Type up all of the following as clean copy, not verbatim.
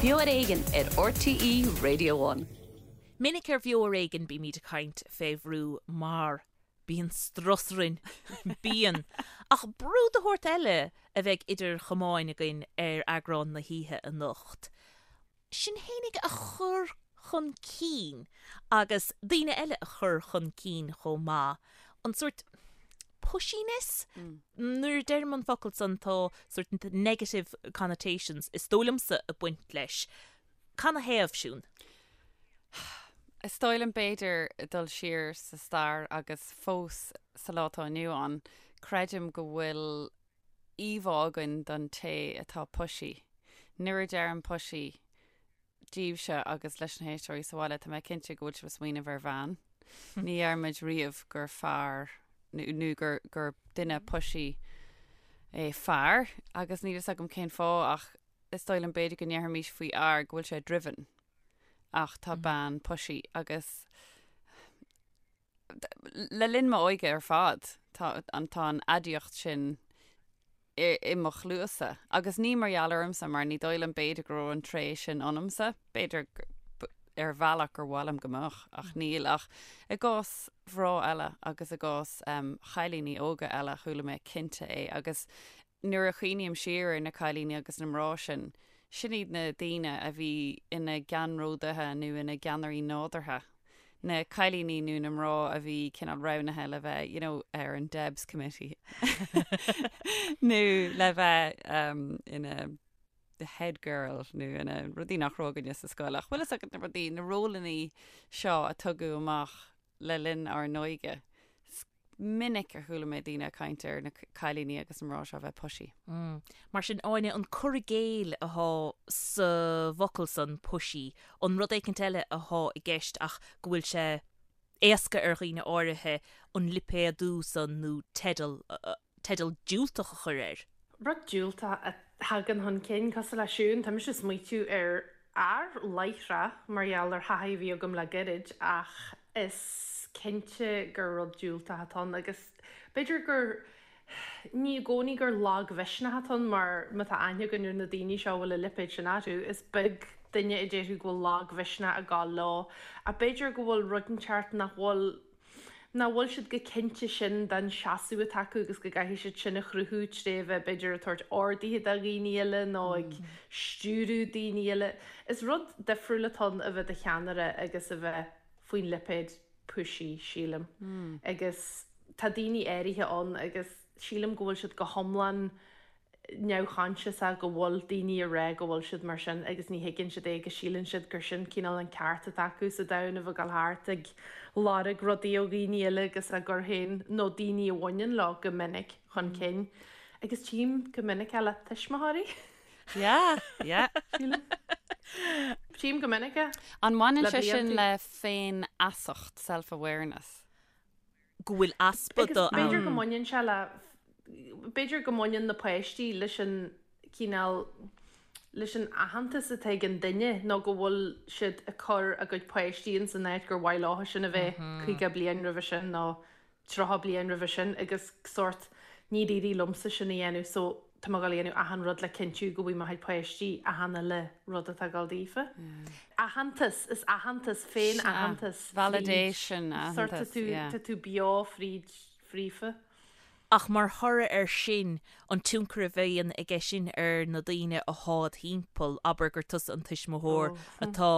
Beo ar Éigean ar RTÉ Radio One. Minic ar Bheo ar Éigean bímid ag caint fé bhrú mar bíonn strus orainn. Bíonn. Ach brú de shórt eile a bheidh idir chamáin againn ar eagrán na hoíche anocht. Sinn fhéinig a chur chun cinn agus daoine eile a chur chun cinn chomh maith. An sórt pushiness? Nuair a deirim an focal san tá sórt negative connotations, is dóigh liomsa, ag baint leis. Canathaobh, Siún? Is dóigh liom b'fhéidir dul siar sa stair agus fós sa lá atá inniu ann, creidim go bhfuil íomhá againn don té atá pushy. Nuair a deirim pushy daoibhse agus leis na héisteoirí sa bhaile, tá mé cinnte go bhfuil sibh ag smaoineamh ar bhean. Ní deirimid riamh gur fear nó gur, gur duine pushy é fear agus níl fhios agam cén fáth ach is dóigh liom b'fhéidir go ndéarfaimis faoi fhear go bhfuil sé driven ach tá bean pushy agus Le linn m'óige ar fad, tá an tá an aidiacht sin i i mo chluasa. Agus ní mar gheall ormsa, mar ní dóigh liom b'fhéidir go raibh an tréith sin ionamsa. B'fhéidir ar bhealach gur mhaith liom go mbeadh, ach níl. Ach i gcás mhná eile agus i gcás chailíní óga eile, chuala mé cinnte é. Agus nuair a chuimhním siar ar na cailíní agus na mná sin, sin iad na daoine a bhí ina gceannródaithe nó ina gceannairí nádúrtha. Na cailíní nó na mná a bhí cineál roghnaithe le bheith, you know, ar an Debs Committee nó le bheith um, ina the head girl nó ina rudaí nach raibh againne sa scoil. Ach bhfuil fhios agat na rudaí, na rólannaí seo a tugadh amach le linn ár n-óige. minic a chuala mé daoine ag caint ar na cailíní agus na mná seo a bheith pushy. Mar sin, Áine, an cur i gcéill athá sa bhfocal san, pushy, an rud éicint eile athá i gceist ach go bhfuil sé éasca ar dhaoine áirithe an lipéadú san nó teideal, teideal diúltach a chur air? Rud diúltach a thagann chun cinn, cosúil le Siún, tá mise ag smaoitiú ar fhear láithreach mar gheall ar thaithí a bhí agam le gairid ach is cinnte gur rud diúltach atá ann agus b'fhéidir gur, ní i gcónaí gur lagmhisneach atá ann mar má tá aithne againn ar na daoine seo a bhfuil an lipéad sin orthu, is beag duine a déarfadh go bhfuil lagmhisneach ag gabháil leo ach b'fhéidir go bhfuil rud inteacht nach bhfuil, nach bhfuil siad chomh cinnte sin den seasamh atá acu agus go gcaithfidh siad sin a chruthú tré bheith b'fhéidir ag tabhairt orduithe do dhaoine eile nó ag stiúradh daoine eile. Is rud difriúil atá ann a bheith i do cheannaire agus a bheith faoin lipéad pushy, sílim. Agus tá daoine áirithe ann agus sílim go bhfuil siad go hiomlán neamhchoinsiasach go bhfuil daoine ag rá go bhfuil siad mar sin agus ní thuigeann siad é agus síleann siad gur sin cineál an ceart atá acu sa domhan a bheith ag dul thart ag lorg rudaí ó dhaoine eile agus á gcur féin nó daoine a bhaineann leo go minic chun cinn. Agus tchím go minic é le tuismitheoirí. Yeah, yeah. Sílim. Tchím go minic é. An mbaineann sé sin le féinfheasacht, self-awareness? Go bhfuil easpa de ann. B'fhéidir go mbaineann sé le, b'fhéidir go mbaineann na páistí leis an cineál, leis an aitheantas atá ag an duine nó go bhfuil siad ag cur a gcuid páistí ins an áit gur mhaith leo sin a bheith 50 bliain roimhe sin nó 30 bliain roimhe sin agus sórt níor éirigh liomsa sin a dhéanamh so tá mé ag dul a dhéanamh achan rud le cinntiú go bhfaighidh mo chuid páistí achan uile rud atá ag dul daofa. Aitheantas, is aitheantas, féin-aitheantas fríd, Validation, sórt tá tú, tá tú beo fríd, fríofa. Ach mar thoradh air sin, an tionchar a bhíonn aige sin ar na daoine athá id thimpeall, abair gur tusa an tuismitheoir atá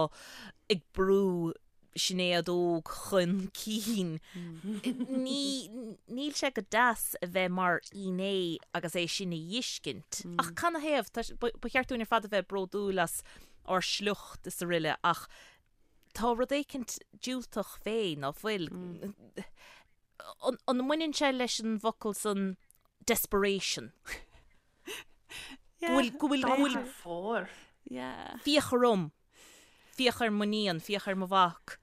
ag brú Sinéad Óg chun cinn. Ní, níl sé go deas a bheith mar fhinné agus é sin a dh'fheiscint. Ach canathaobh? Tá, ba cheart dúinn ar fad a bheith bródúil as ár sliocht is aroile ach tá rud éicint diúltach fé, ná fuil? An, an mbaineann sé leis an bhfocal san desperation? Go bhfuil, go bhfuil, go bhfuil. Fóir. Féach orm. Féach ar m'iníon, féach ar mo mhac,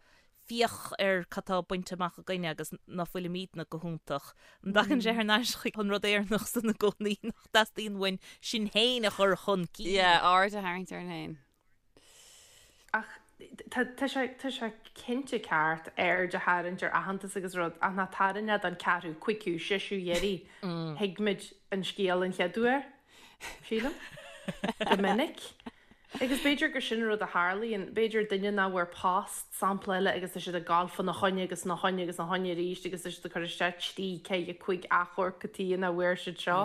féach ar cad tá bainte amach againne agus ná fuilimídne go hiontach. An dtagann sé thar n-ais chuig an rud Éireannach san i gcónaí nach dteastaíonn uainn sinn féin a chur chun cinn? Yeah, aird a tharraingt orainn féin. Ach tá, tá sé, tá sé cinnte ceart aird a tharraingt ar aitheantas agus rud ach ná tarraing é don ceathrú, cúigiú, seisiú iarraidh. Thuig muid an scéal an chéad uair, sílim. Go minic. Agus b'fhéidir gur sin an rud a tharlaíonn, b'fhéidir duine nach bhfuair post, sampla eile, agus tá siad ag gabháil fána choinne agus ina choinne agus ina choinne arís agus tá siad ag cur isteach trí, ceithre, cúig achomharc cad chuige nach bhfuair siad seo.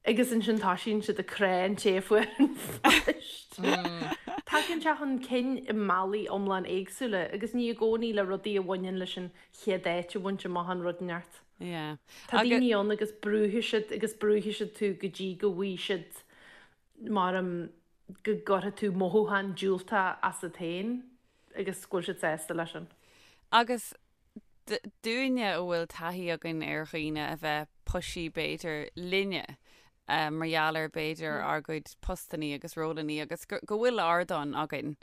Agus ansin toisíonn siad ag crá an té a fuair an phost. Tagann sé chun cinn i mbealaí iomlán éagsúla agus ní i gcónaí le rudaí a bhaineann leis an chéad áit a bhaint amach nó rud inteacht. Tá daoine ann agus brúfaidh siad agus brúfaidh siad tú go dtí go bhfaighidh siad mar go gcuirfidh tú mothúchán diúltach asat féin agus go bhfuil siad sásta leis sin. Agus dúinne a bhfuil taithí againn ar dhaoine a bheith pushy b'fhéidir linne mar gheall ar b'fhéidir ár gcuid postannaí agus rólannaí agus go bhfuil ardán againn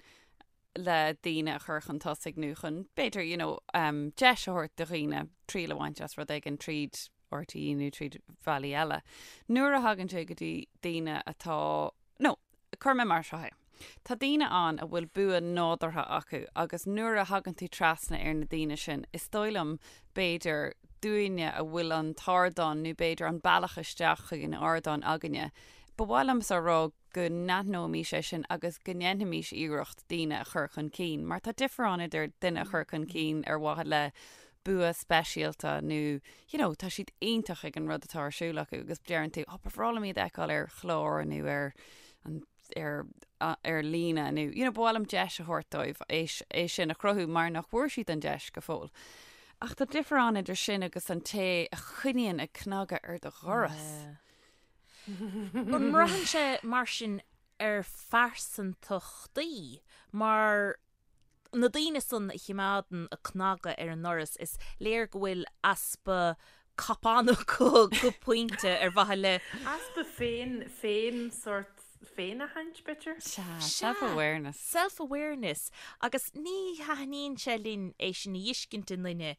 le daoine a chur chun tosaigh nó chun b'fhéidir you know deis a thabhairt do dhaoine triail a bhaint as rud éigin tríd RTÉ nó tríd bhealaí eile. Nuair a thagann sé go dtí daoine atá, nó cuirfidh mé mar seo é, tá daoine ann a bhfuil bua nádúrtha acu agus nuair a thagann tú trasna ar na daoine sin, is dóigh liom, b'fhéidir, dúinne a bhfuil an t-ardán nó b'fhéidir an bealach isteach chuig an ardán againne, ba mhaith liomsa a rá go n-aithneoimís é sin agus go ndéanfaimis iarracht daoine a chur chun cinn, mar tá difear ann idir duine a chur chun cinn ar mhaithe le bua speisialta nó you know tá siad iontach ag an rud atá ar siúl acu agus deireann tú oh ba bhreá liom iad a fheiceáil ar chlár nó ar an ar ar líne nó you know ba mhaith liom deis a thabhairt dóibh é é sin a chruthú mar nach bhfuair siad an deis go fóill. Ach tá difear ann idir sin agus an té a choinníonn ag cnagadh ar do dhoras. An mbraitheann sé mar sin ar phearsantachtaí mar na daoine san a chimeádann ag cnagadh ar an ndoras, is léir go bhfuil easpa cupán acu go pointe ar mhaithe le. Easpa féin, féin sórt féinaithint, b'fhéidir? Sea, self-awareness. Self-awareness. Agus ní thaitníonn sé linn é sin a fheiscint i nduine.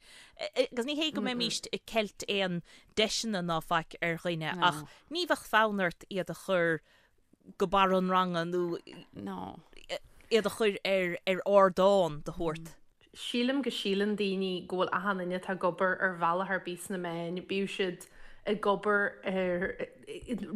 Agus ní hé go mbeimíst ag ceilt aon deiseanna ná faic ar dhuine ach ní bheadh fonn ort iad a chur go barr an ranga nó No. iad a chur ar ar ardán de shórt. Sílim go síleann daoine go bhfuil achan duine atá ag obair ar bhealach ar bith sna meáin, bíodh siad ag obair ar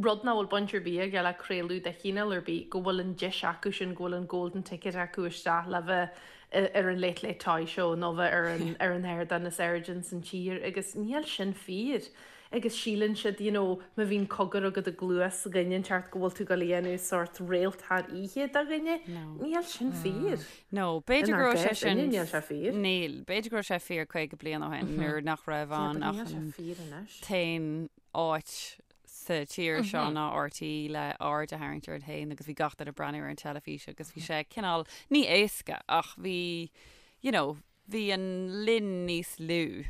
rud nach bhfuil baint ar bith aige le craoladh de chineál ar bith, go bhfuil an deis acu sin, go bhfuil an golden ticket acu isteach le bheith ar an Late Late Toy Show nó bheith ar an ar an ardán is airde ins an tír agus níl sin fíor. Agus síleann siad, you know, má bhíonn cogar agat i gcluas dhuine inteacht go bhfuil tú ag dul a dhéanamh sórt réalt thar oíche de dhuine. Níl sin fíor. No, b'fhéidir go raibh sé sin, Níl sé fíor. Níl, b'fhéidir go raibh sé fíor 50 bliain ó shin nuair nach raibh ann ach an t-aon áit sa tír seo ná RTÉ le aird a tharraingt ort féin agus bhí gach duine ag breathnú ar an teilifís agus bhí sé cineál, ní éasca ach bhí, you know, bhí an linn níos lú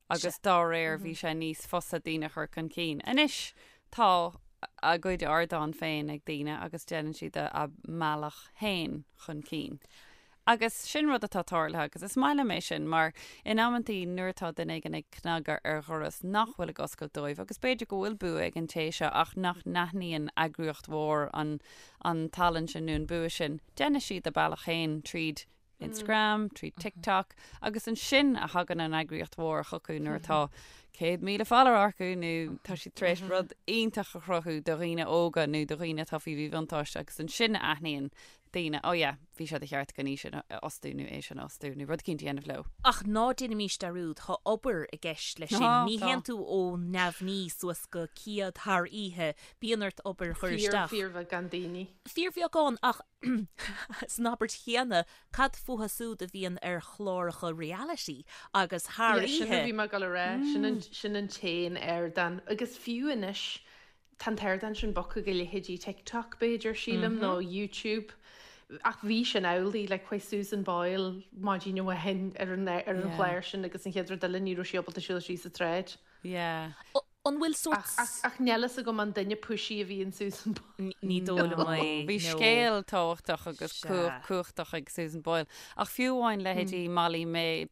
agus dá réir bhí sé níos fusa daoine a chur chun cinn. Anois tá a gcuid ardán féin ag daoine agus déanann siad a mbealach féin chun cinn. Agus sin rud atá tarlaithe agus is maith liom é sin mar in amantaí nuair atá duine éigin ag cnagadh ar dhoras nach bhfuil ag oscailt dóibh agus b'fhéidir go bhfuil bua ag an té seo ach nach n-aithníonn eagraíocht mhór an an tallann sin nó an bua sin, déanfaidh siad a bealach féin tríd Instagram, tríd TikTok agus ansin a thagann an eagraíocht mhór chucu nuair atá 100,000 follower acu nó tá siad tar éis rud iontach a chruthú do dhaoine óga nó do dhaoine atá faoi mhíbhuntáiste agus ansin a aithníonn daoine, oh yeah, bhí sé de cheart againn í sin a fhostú nó é sin a fhostú nó rud eicínt a dhéanamh leo. Ach ná déanaimís dearúd, tá obair i gceist leis sin. Ní théann tú ó neamhní suas go céad thar oíche, bíonn ort obair a chur isteach. Fíorbheagán daoine. Fíorbheagán ach San abairt chéanna, cad fúthu súd a bhíonn ar chláracha reality agus thar Yeah, sin a oíche? bhí mé ag dul a rá, sin an, sin an t-aon ardán. Agus fiú anois, tá an t-ardán sin bogtha go leithéidí TikTok, b'fhéidir, sílim, nó YouTube. Ach bhí sin amhlaidh, like, chuaigh Susan Boyle maidin amháin ar an, ar an Yeah. chlár sin agus an chéad rud eile ní raibh sí ábalta siúl síos an tsráid. Yeah. An bhfuil sórt. Ach níl fhios agam an duine pushy a bhí in Susan Boyle. Ní dóigh liom é, Bhí no. scéal tábhachtach agus Sea. cumhachtach ag Susan Boyle. Ach fiú amháin leithéidí Molly May,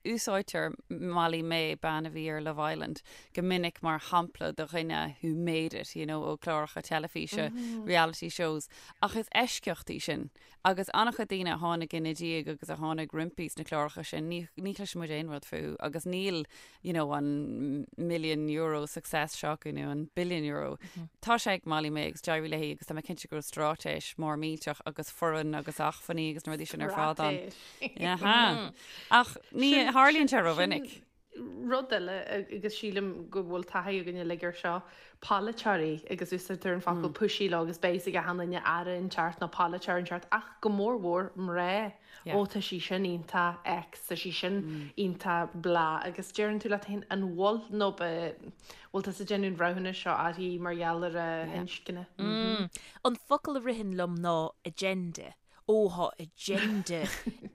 úsáidtear Molly May, bean a bhí ar Love Island, go minic mar shampla de dhuine who made it, you know, ó chláracha teilifíse, reality shows. Ach is eisceacht í sin. Agus an-chuid daoine a tháinig ina diaidh agus a tháinig roimpi sna cláracha sin, ní, ní chloiseann muid aon rud fúthu agus níl, you know, an million euro. euro success seo acu nó an billion euro. Tá sé ag Molly-Mae agus d'éirigh léi agus tá mé cinnte go raibh straitéis mór millteach agus foireann agus acmhainní agus na rudaí sin ar fad ann. Straitéis. Ach ní tharlaíonn sé rómhinic. Rud eile, agus sílim go bhfuil taithí againn uilig air seo, polaiteoirí, agus úsáidtear an focal pushy leo agus beidh a fhios ag achan duine aire inteacht nó polaiteoir inteacht, ach go mór mhór mná, ó tá sí sin iontach X, tá sí sin iontach blah, agus deireann tú leat féin an bhfuil nó bhfuil tusa ag déanamh an bhreithiúnais seo uirthi mar gheall ar a hinscne? An focal a ritheann liom ná agenda. Ó, thá agenda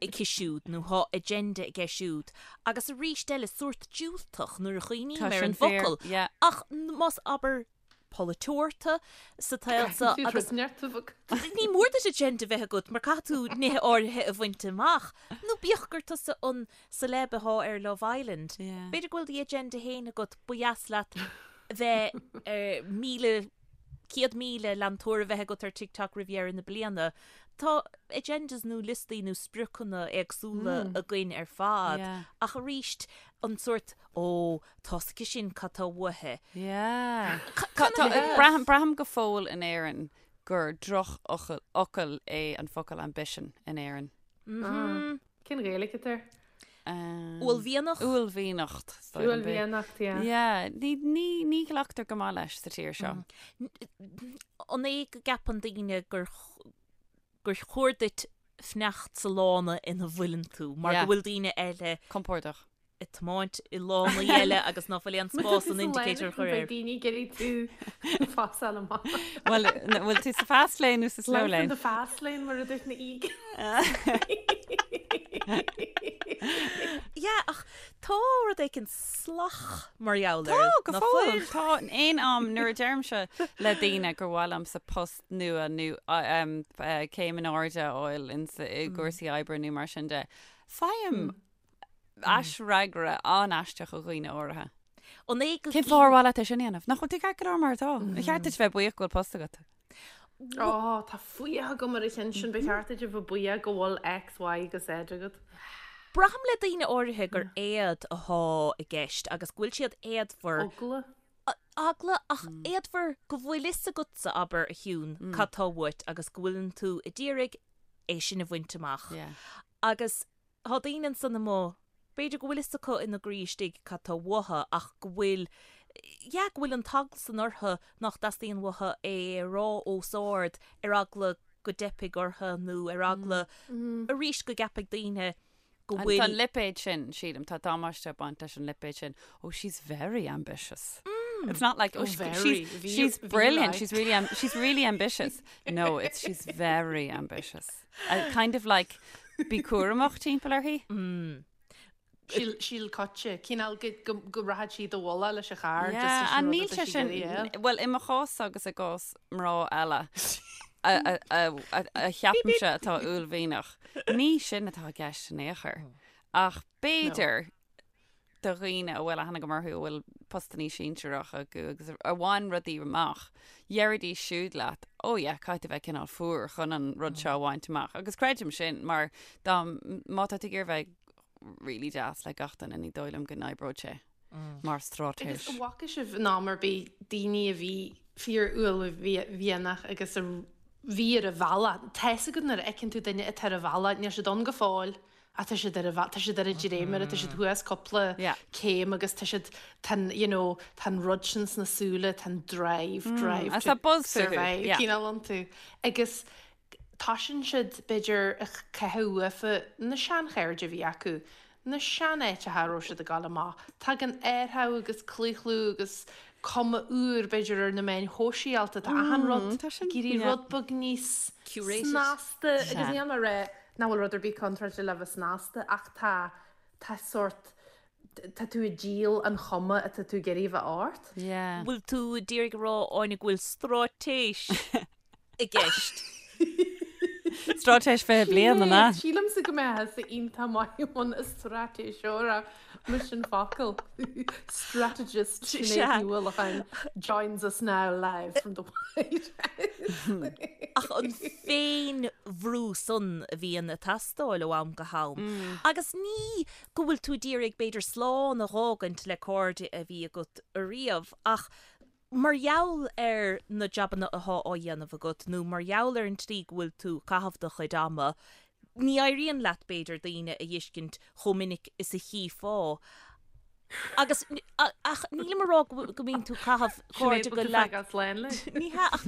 aici siúd nó thá agenda aige siúd. Agus arís eile, sórt diúltach nuair a chuimhním Tá ar sin an fíor, bhfocal. yeah. Ach más, abair, polaiteoir tú sa tsaol seo Caithfidh tú agus rud neart a bheith agat. ní mór duit agenda bheith agat mar caithfidh tú nithe áirithe a bhaint amach. Nó bíodh gur tusa an celeb athá ar Love Island, Yeah. b'fhéidir go bhfuil do agenda féin agat, ba dheas leat bheith ar 1,000 100,000 leantóir a bheith agat ar TikTok roimh dheireadh na bliana. Tá agendas nó liostaí nó spriocanna éagsúla againn ar fad Yeah. ach arís an sórt ó tá's aici sin cad tá uaithi. Yeah. Ca- Tá, braithim, braithim go fóill in Éirinn gur drochfhocal fhocal é an focal ambition in Éirinn. Cén Ghaeilge atá air? Uaillmhianach? Uaillmhianacht. is dóigh liom. Uaillmhianacht, yeah. Yeah, ní, ní, ní ghlactar go maith leis sa tír seo. An é go gceapann daoine gur gur chóir duit fanacht sa lána ina bhfuileann tú mar Yeah. go bhfuil daoine eile Compordach. ag tiomáint i lánaí eile agus ná fuil aon spás an indicator a chur air. Beidh daoine ag iarraidh tú phasáil amach. Bhuel, bhfuil tú sa fast lane nó sa slow Life in lane? the fast lane mar a dúirt na Eagles. Yeah, ach tá rud éicint salach mar gheall Tá, air. go ná fóill. fuil? Tá aon am nuair a deirimse le daoine gur mhaith liomsa post nua nó céim in airde a fháil i gcúrsaí oibre nó mar sin de, faighim aisfhreagra an-aisteach ó dhaoine áirithe. An é go Cén fáth ar mhaith leat é sin a dhéanamh? Nach bhfuil tú ceart go leor mar atá? Ar cheart duit bheith buíoch go bhfuil post agat? Ó, tá fuath agam ar an cheann sin, ba cheart duit a bheith buíoch go bhfuil X, Y agus Z agat. Braithim le daoine áirithe gur éad athá i gceist agus go bhfuil siad éadmhar. Eagla. Eagla, ach éadmhar go bhfuil fhios agatsa, abair, a Shiún, cad tá uait agus go bhfuileann tú a d'iarraidh é sin a bhaint amach. Agus Tá daoine ansan amuigh, b'fhéidir go bhfuil fhios acu ina gcroí istigh cad tá uathu ach go bhfuil, yeah, go bhfuil an t-eagla san orthu nach dteastaíonn uathu é a rá os ard ar eagla go dteipfidh orthu nó ar eagla arís go gceapfaidh daoine go Tá bhfuil. an lipéad sin, sílim, tá damáiste ag baint leis an lipéad sin. Oh, she's very ambitious. It's not like, oh, Oh, she, very. she's, Bhí- she's bhí brilliant, like. she's really, am- she's really ambitious. No, it's she's very ambitious. Uh, kind of like, bí cúramach timpeall uirthi. Síl, síl coite. Cineál go, go, go rachaidh sí do bhualadh leis an charr just Yeah, leis an and rud níl atá sé sí sin, ag iarraidh a fháil. well, i mo chás agus i gcás mná eile a, a, a, a, a cheapaimse atá uaillmhianach, ní sin atá i gceist in aon chor. Ach b'fhéidir do dhaoine a bhfuil aithne agam orthu a bhfuil postannaí sinsearach acu agus a bhain rudaí amach, deiridís siúd leat, oh yeah, caithfidh tú bheith cineál fuar chun an rud seo a bhaint amach. Agus creidim sin mar dá, má tá tú ag iarraidh bheith really deas le gach duine, ní dóigh liom go n-oibreoidh sé mar straitéis. Agus an bhfaca sibh in am ar bith daoine a bhí fíor-uaillmhianach agus a bhí ar a bhealach? Tá fhios agat nuair a fheiceann tú duine atá ar a bhealach, níl siad ann go fóill, Ach tá siad ar a bhealach, tá siad ar an dréimire, tá siad thuas cúpla céim agus tá siad, tá an, you know, tá an rud sin sna súile, tá an drive, drive Agus tá to buzz fúthu, survive yeah. cineál iontu. Agus toisíonn siad, b'fhéidir, ag caitheamh uafa na seanchairde a bhí acu, na seanáiteacha a raibh siad ag dul amach. Tagann athrú agus claochlú agus cuma úr, b'fhéidir, ar na meáin shóisialta, tá achan rud tá sin, ag éirí yeah. rud beag níos Curated. snasta agus Sea. níl mé ag rá Nach bhfuil rud ar bith contráilte le bheith snasta ach tá, tá sórt, tá tú ag díol an chuma atá tú ag iarraidh a bheith ort. Yeah. Bhfuil tú ag iarraidh a rá, Áine, go bhfuil straitéis i gceist? Straitéis 20 bliain, an ea? Sílimse go mbeifeá iontach maith i mbun straitéiseora. Mise an focal. Strategist Sinéad Ní Uallacháin joins us now live from the White House. Ach an féin-bhrú san a bhíonn ag teastáil ó am go ham. Agus ní go bhfuil tú d'iarraidh b'fhéidir slán a dh'fhágaint le cairde a bhí agat ariamh ach mar gheall ar na jabanna athá á dhéanamh agat nó mar gheall ar an tslí go bhfuil tú ag caitheamh do chuid ama, ní éiríonn leat b'fhéidir daoine a dh'fheiscint chomh minic is a chífeá. Agus, ach nílim a rá go mbíonn tú ag caitheamh cairde go leat. Ní hea ach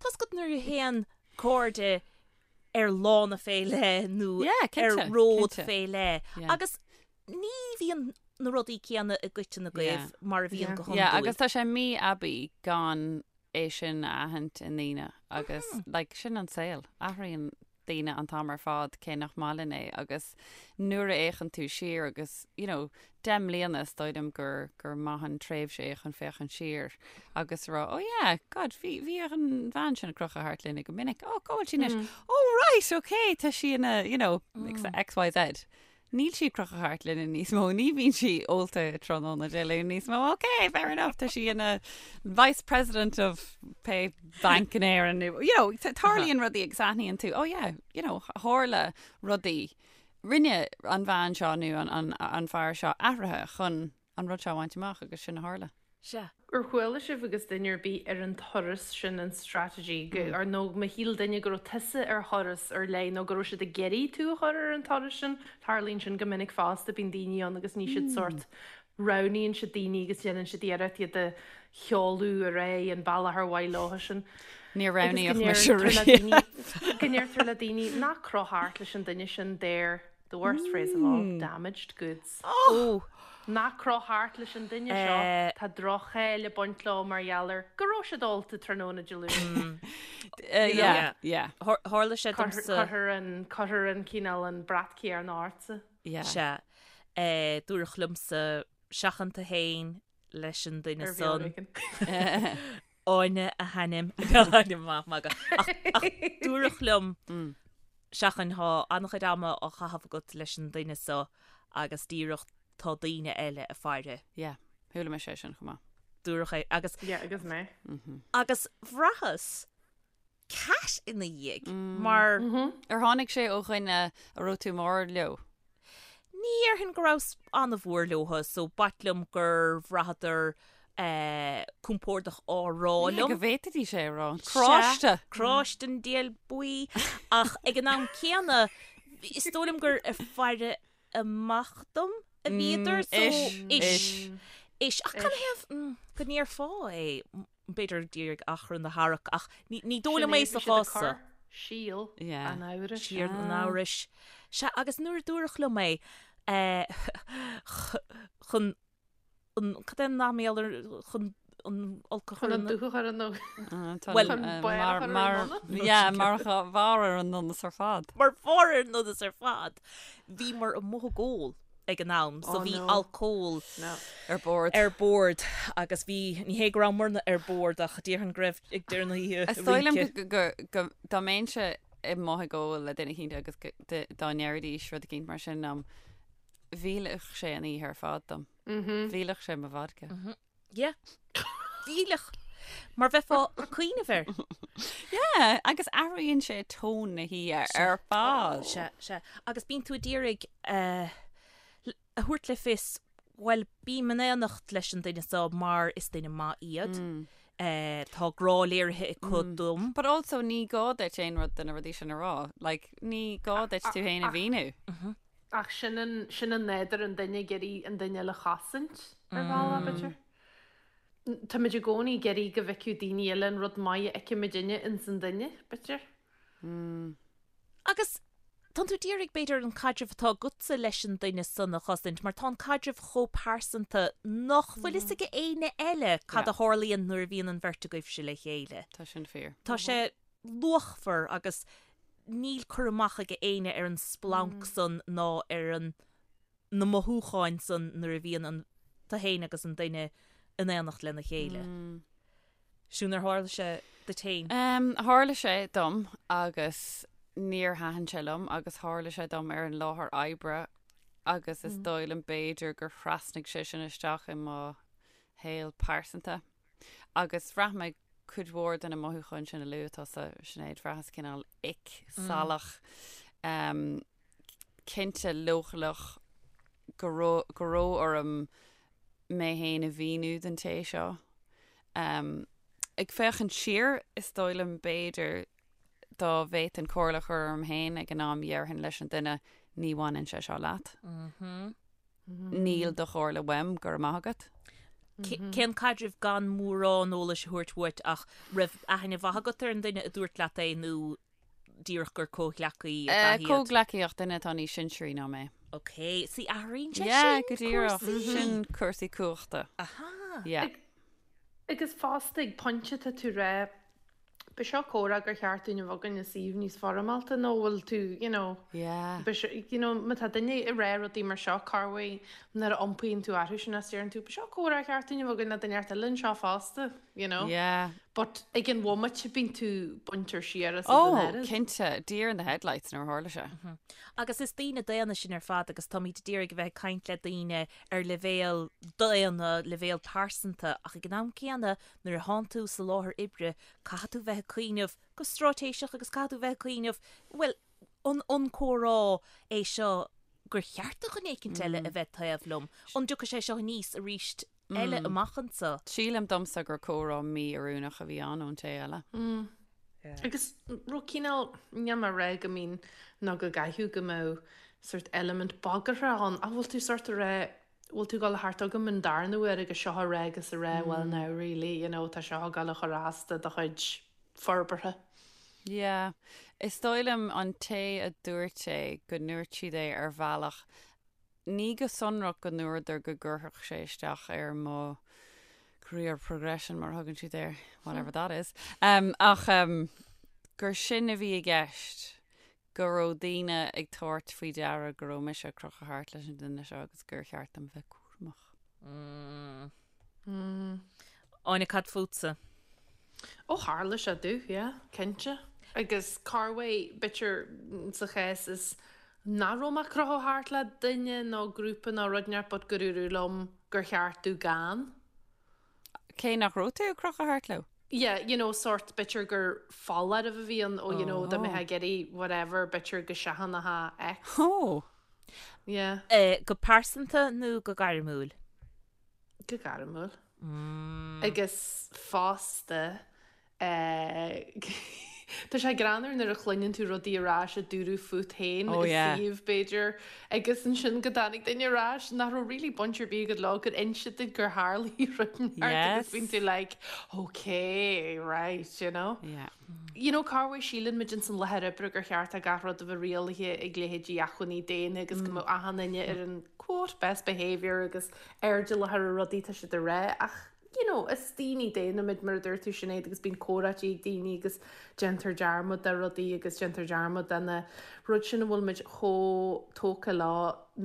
tá's agat nuair a théann cairde ar lána fé leith nó ar ród fé leith agus ní bhíonn na rudaí céanna i gcoiteann agaibh mar a bhíonn go hiondúil. Yeah, agus tá sé mí-aibí gan é sin a aithint i ndaoine agus like sin an saol. Athraíonn daoine an t-am ar fad cé nach maith linn é agus nuair a fhéachann tú siar agus you know 10 mbliana is dóigh liom gur gur maith an tréimhse é chun féachaint siar agus rá oh yeah God bhí bhí an bhean sin ag crochadh thart linne go minic oh cá bhfuil sí anois oh right okay tá sí ina you know X Y Z Níl sí ag crochadh thart linne níos mó, ní bhíonn sí ólta tráthnóna Dé Luain níos mó, ok, fair enough, tá sí ina vice president of pé bank in Éirinn, nó, you know, tarlaíonn rudaí agus aithníonn tú, oh yeah, you know, tharla rudaí, rinne an bhean seo nó an, an, an fear seo athruithe chun an rud seo a bhaint amach agus sin a tharla. Sea. Ar chuala sibh agus duine ar bith ar an turas sin an strategy go ar nó má shíl duine go raibh tusa ar thuras ar leith nó go raibh siad ag iarraidh tú a chur ar an turas sin, tarlaíonn sin go minic fosta, bíonn daoine ann agus ní siad sórt roghnaíonn siad daoine agus déanann siad iarracht iad a sheoladh ar aghaidh an bealach ar mhaith leo sin. Níor roghnaíodh mise riamh. Go ndeirtear le daoine ná croch thart leis an duine sin they're The worst phrase of all, damaged goods. Oh! Ná croch thart leis an duine seo, tá droch-cháil ag baint leo mar gheall ar go raibh siad ólta tráthnóna Dé Luain. Yeah, yeah. Tharla sé domsa. Cuirthear an, cuirthear an cineál an brat céanna ortsa. Yeah. Sea. Dúradh liomsa seachain tú féin leis an duine Ar bhealach san. éigin. Áine a hainm. Maith, magadh. Ach, ach dúradh liom seachain tá an-chuid ama á chaitheamh agat leis an duine seo agus díreach tá daoine eile ag faire. Yeah, chuala mise é sin chomh maith. Dúradh é agus. Yeah, agus mé. Agus bhraitheas cat ina dhiaidh mar. Ar tháinig sé ó dhuine a raibh tú mór leo? Ní dhéarfainn go rabhas an-mhór leo so b'ait liom gur bhraitheadar compordach á rá liom. Go bhféadfaidís é a rá. Cráiste! Cráiste an diabhail buí. Ach ag an am céanna, is dóigh liom gur ag faire amach dom a bhíodar so ish. Ish. Ach canathaobh go ndéarfá é? B'fhéidir díreach achrann a tharrac ach ní dóigh liom é sa chás seo. Síol an amhrais. Síol an amhrais. Sea, agus nuair a dúradh liom é, chun an, cad é an nath mar gheall ar, chun an olc a chur Chun an dúch a chur ar an Bhuel, chun barr a chur ar an ndonas. Yeah, mar bharr ar an ndonas ar fad. Mar bharr ar an ndonas ar fad. Bhíomar amuigh ag ól. ag an am so bhí alcól ar bord. ar bord agus bhí, ní hé go rabhamarna ar bord ach déarfainn go raibh ag deireadh na hoíche Is dóigh liom go, go, dá mbeinnse amuigh ag ól le duine eicínt agus dá ndéarfaidís rud eicínt mar sin liom, mhillfeadh sé an oíche ar fad dom. Mhillfeadh sé mo vodka. Yeah. Mhillfeadh. Mar bheifeá ag cuimhneamh air. Yeah, agus athraíonn sé tón na hoíche ar fad. Sea, sea. Agus bíonn tú ag iarraidh a thabhairt le fios, bhuel, bím in éineacht leis an duine seo mar is duine maith iad. Tá grá léirithe acu dom. But also ní gá duit aon rud de na rudaí sin a rá. Like, ní gá duit tú féin a mhíniú. Ach sin an, sin an nádúr an duine ag iarraidh an duine eile a chosaint, ar bhealach, b'fhéidir. Táimid i gcónaí ag iarraidh go bhfeicfeadh daoine eile an rud maith a fheicimidinne ins an duine, b'fhéidir. Agus tánn tú d'iarraidh, b'fhéidir, an caidreamh atá agatsa leis an duine san a chosaint, mar tá an caidreamh chomh pearsanta nach bhfuil fhios ag éinne eile cad a tharlaíonn nuair a bhíonn an bheirt agaibhse le chéile. Tá sin fíor. Tá sé luachmhar agus níl cur amach ag éinne ar an splanc san ná ar an na mothúcháin san nuair a bhíonn an tú féin agus an duine in éineacht lena chéile. Siún, ar tharla sé duit féin? Tharla sé dom agus níor thaitin sé liom agus tharla sé dom ar an láthair oibre. Agus is dóigh liom b'fhéidir gur thrasnaigh sé sin isteach i mo shaol pearsanta. Agus bhraith mé cuid mhór de na mothúcháin sin a luaigh tusa, Sinéad, bhraitheas cineál ick, salach, cinnte leochaileach go raibh go raibh orm mé féin a mhíniú don té seo. Ag féachaint siar, is dóigh liom b'fhéidir dá bhféadfainn comhairle a chur orm féin ag an am dhéarfainn leis an duine ní bhaineann sé seo leat. Níl do chomhairle uaim, go raibh maith agat. Cén caidreamh gan mórán eolais a thabhairt uait ach raibh aithne mhaith agat ar an duine a dúirt leat é nó díreach gur comhghleacaí ab ea iad? Comhghleacaí ach duine atá níos sinsearaí ná mé. Ok, see athraíonn sé sin go díreach. cúrsaí. Sin cúrsaí cumhachta. Aha. Yeah. Agus fosta ag pointe tá tú ag rá Ba seo comhrá gur cheart dúinn a bheith againn i suíomh níos foirmeálta nó bhfuil tú, you know, Yeah. ba seo, you know, má tá duine ag rá rudaí mar seo, corruair nuair a iompaíonn tú orthu sin is deireann tú, ba seo comhrá ar cheart dúinn a bheith againn le duine inteacht eile anseo fosta, you know. Yeah. But ag an bhomaite bíonn tú baintear siar as an Oh, oiread. cinnte, deer in the headlights nuair a tharla sé. Agus is daoine daonna sinn ar fad agus táimid ag iarraidh a bheith ag caint le daoine ar leibhéal daonna, leibhéal pearsanta ach ag an am céanna Nuair a thánn tú sa láthair oibre, caithfidh tú bheith ag cuimhneamh go straitéiseach agus caithfidh tú bheith ag cuimhneamh, bhuel, an an comhrá é seo gur cheart do dhuine éicint eile a bheith taobh liom? An dtiocfaidh sé seo aníos arís eile amach anseo? Sílim domsa gur comhrá mí-oiriúnach a bhí ann ón té eile. Agus raibh cineál, níl mé ag rá go mbíonn nó go gcaithfidh go mbeadh sort element bagartha ann, ach bhfuil tú sort ag rá, bhfuil tú ag dul thart agam an darna huair agus seo a rá agus a rá well now really, you know, tá seo ag dul a chur as do do chuid forbartha. Yeah. Is dóigh liom an té a dúirt é go ndúirt siad é ar bhealach, ní go sonrach go ndúradar go gcuirfeadh sé isteach ar mo career progression mar a thugann siad air, whatever that is, um, ach um, gur sin a bhí i gceist. go raibh daoine ag tabhairt faoi deara go raibh mise ag crochadh thart leis an duine seo agus gur cheart dom bheith cúramach. Áine, cad fútsa? Ó tharla sé domh, yeah, cinnte. Agus corruair, b'fhéidir sa chás is nach raibh mé ag crochadh thart le duine nó grúpa nó rud inteacht but gur dúradh liom gur cheart domh gan. Cé nach raibh tú ag crochadh thart leo? Yeah, you know, sort, b'fhéidir gur foláireamh a bhí ann, oh, you know, dá mbeifeá ag iarraidh whatever, b'fhéidir go seachnófá X. Oh! Yeah. Go pearsanta nó go gairmiúil? Go gairmiúil. Agus fosta, Tá sé greannmhar nuair a chluineann tú rudaí ar ais a dúradh fút féin i suíomh, b'fhéidir, agus ansin go dtáinig duine ar ais nach raibh really baint ar bith agat leo, gur inse duit gur tharlaigh rud inteacht agus bíonn tú like, okay, right, you know. You know, corruair síleann muid ins an láthair oibre gur cheart do gach rud a bheith rialaithe ag leithéidí acmhainní daonna agus go mbeadh achan duine ar an quote best behaviour agus airdeallach ar na rudaí atá siad a rá ach you know, is daoine daonna muid mar a dúirt tú Sinéad agus bíonn comhráití ag daoine agus déantar dearmad de rudaí agus déantar dearmad de na rud sin a bhfuil muid chomh tógtha leo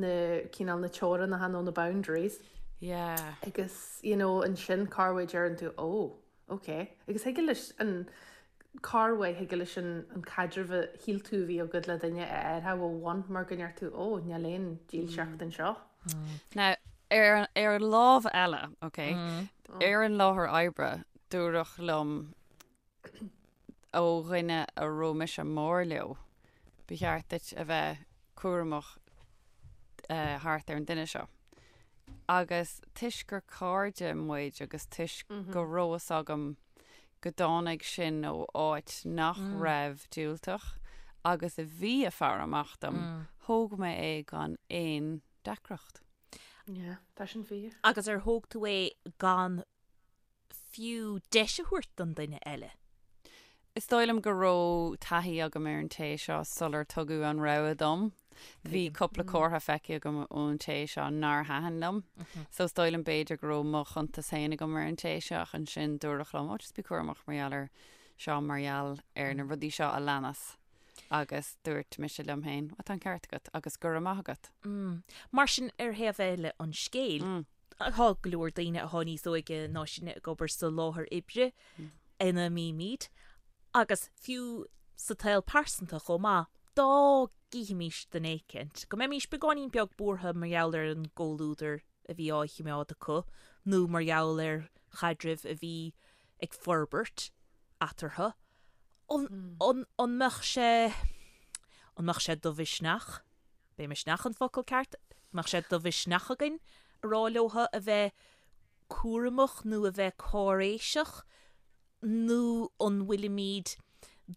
na cineál na teorainneacha nó na boundaries. Yeah. Agus you know ansin corruair deireann tú oh ok agus thig leis an corruair thig leis an an caidreamh a shíl tú a bhí agat le duine a athrú ó bhun mar go ndeir tú oh níl aon dílseacht anseo. Now, ar, ar an lámh eile, ok, ar an láthair oibre, dúradh liom ó dhuine a raibh mise mór leo, ba cheart duit a bheith cúramach eh, thart ar an duine seo. Agus toisc gur cairde muid agus toisc go raibh fhios agam go dtáinig sin ó áit nach raibh diúltach agus a bhí ag faire amach dom, thóg mé é gan aon deacracht. Yeah, tá sin fíor. Agus ar thóg tú é gan fiú deis a thabhairt don duine eile? Is dóigh liom go raibh taithí agam ar an té seo sular tugadh an rogha dom. Bhí cúpla comhartha feicthe agam ón té seo nár thaitin liom. So is dóigh liom b'fhéidir go raibh mo chuntas féin agam ar an té seo ach ansin dúradh liom, oh just bí cúramach mar gheall ar seo, mar gheall ar na rudaí seo a leanas. Agus dúirt mise liom féin, oh tá an ceart agat agus go raibh maith agat. Mar sin ar thaobh eile an scéil, tá go leor daoine atá níos óige ná sinne ag obair sa láthair oibre ina mbímid agus fiú sa tsaol pearsanta chomh maith. dá gcífimís duine éicint, go mbeimís beagáinín beag buartha mar gheall ar an gcomhluadar a bhí á chimeád acu nó mar gheall ar chaidreamh a bhí ag forbairt eatarthu, an, an, an mbeadh sé, an mbeadh sé de mhisneach, b'é misneach an focal ceart, an mbeadh sé de mhisneach againn a rá leotha a bheith cúramach nó a bheith cáiréiseach nó an bhfuilimid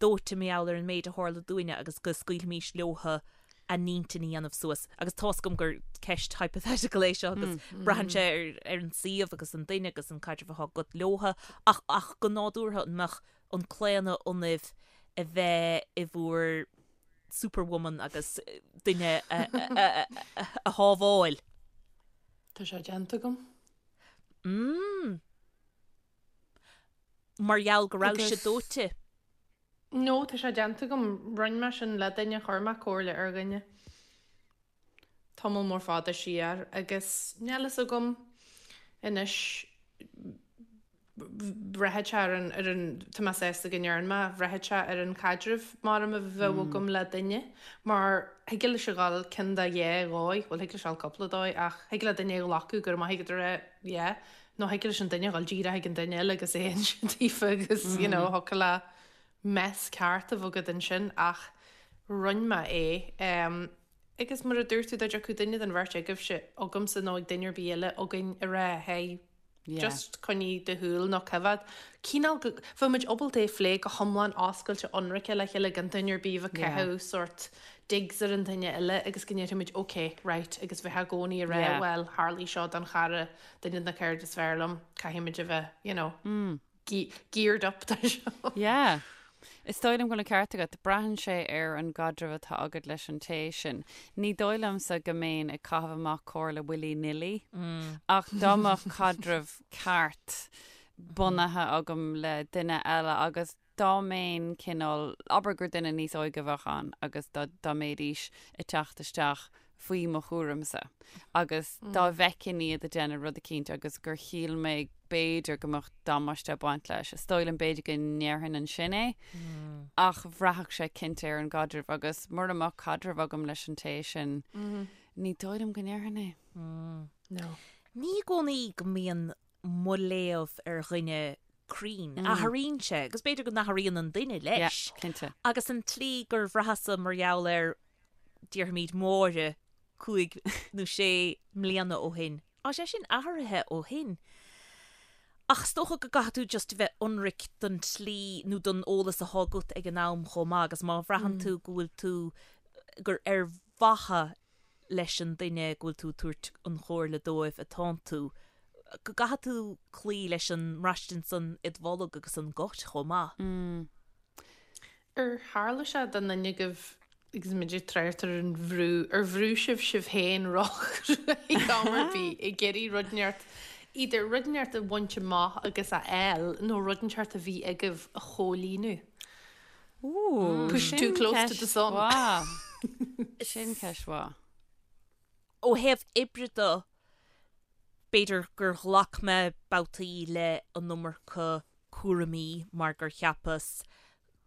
dóite mar gheall ar an méid a tharla dúinne agus go scaoilfimis leotha a n-intinn a dhéanamh suas. Agus tá's agam gur ceist hypothetical é seo agus braitheann sé ar ar an suíomh agus an duine agus an caidreamh atá agat leotha ach ach go nádúrtha an mbeadh an claonadh ionaibh a bheith i bhur superwoman agus duine a a a shábháil? Tá sé déanta agam. Mm. Mar gheall go raibh sé dóite. No, tá sé déanta agam. Rinne mé sin le duine, chuir mé comhairle ar dhuine tamall mór fada siar agus níl fhios agam anois bhraithfeadh sé ar an, ar an, tá mé sásta go ndearna mé, bhraithfeadh sé ar an chaidreamh mar a bheadh agam le duine mar thig leis a dhul ceann de dhá dhóigh, bhuel thig leis a dhul cúpla dóigh ach thig le duine a ghlacadh go raibh maith agat a rá yeah nó thig leis an duine a dhul díreach ag an duine eile agus é a inse daofa agus you know thiocfadh le mess ceart a bheith agat ansin ach rinne mé é um, agus mar a dúirt tú dá dtiocfadh duine den bheirt agaibhse agamsa nó ag duine ar bith eile againn a rá hey Yeah. just coinnigh do shúil nó coimhéad cineál go bheadh muid ábalta é a phlé go hiomlán oscailte ionraice le chéile gan duine ar bith a bheith ag Yeah. caitheamh sórt digs ar an duine eile agus go ndéarfaimid ok, right agus bheith i gcónaí ag rá Yeah. bhuel tharlaigh seo don chara, duine de na cairde is fearr liom, caithfimid a bheith you know geared up do seo. Yeah. Is dóigh liom go bhfuil an ceart agat. Braitheann sé ar an gcaidreamh atá agat leis an té sin. Ní dóigh liomsa go mbeinn ag caitheamh amach comhairle willy nilly, ach dá mbeadh caidreamh ceart bunaithe agam le duine eile agus dá mbeinn cineál, abair gur duine níos óige a bheadh ann agus dá dá mbeidís ag teacht isteach faoi mo chúramsa agus dá bhfeicfinn iad ag déanamh rud eicínt agus gur shíl mé b'fhéidir go mbeadh damáiste ag baint leis, is dóigh liom b'fhéidir go ndéarfainn ansin é ach bhraithfeadh sé cinnte ar an gcaidreamh agus mura mbeadh caidreamh agam leis an té sin, ní dóigh liom go ndéarfainn é. No. Ní i gcónaí go mbíonn mo léamh ar dhuine cruinn. Athraíonn sé, agus b'fhéidir go n-athraíonn an duine leis. Yeah, cinnte. Agus an tslí gur bhraitheas-sa mar gheall ar, déarfaimid, Máire cúig nó sé mbliana ó shin, tá sé sin athraithe ó shin. Ach is dócha go gcaithfidh tú just a bheith ionraic don tslí nó don eolas atá agat ag an am chomh maith agus má bhraitheann tú go bhfuil tú, gur ar mhaithe leis an duine go bhfuil tú ag tabhairt an chomhairle dóibh atánn tú, go gcaithfidh tú cloí leis an mbraistint san id bholg agus an gut chomh maith. Ar tharla sé do dhuine agaibh agus muid ag trácht ar an bhrú, ar bhrú sibh sibh féin róchruaidh am ar bith ag iarraidh rud inteacht, either rud inteacht a bhaint amach agus a fháil nó rud inteacht a bhí agaibh a chomhlíonadh? Ooh, Push too sin close to the ceist sun. mhaith. Sin ceist mhaith. Ó thaobh oibre de, b'fhéidir gur ghlac mé babhtaí le an iomarca cúraimí mar gur cheapas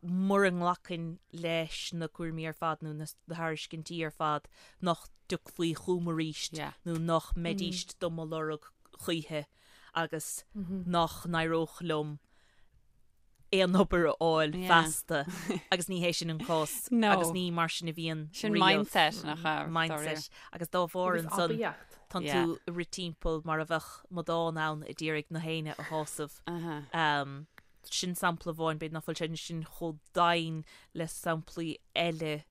mura nglacfainn leis na cúraimí ar fad nó na tairiscintí ar fad nach dtiocfaí chugam arís Yeah. nó nach mbeidíst do mo lorg choíche agus nach n-éireodh liom aon obair a fháil feasta agus ní hé sin an cás agus ní mar sin a bhíonn Sin mindset nach ea? Mindset agus dá bharr ansan tánn tú ag rith timpeall mar a bheadh amadán ann a d'iarraidh na héinne a shásamh. Sin sampla amháin, b'fhéidir nach bhfuil sé sin chomh domhain le samplaí eile.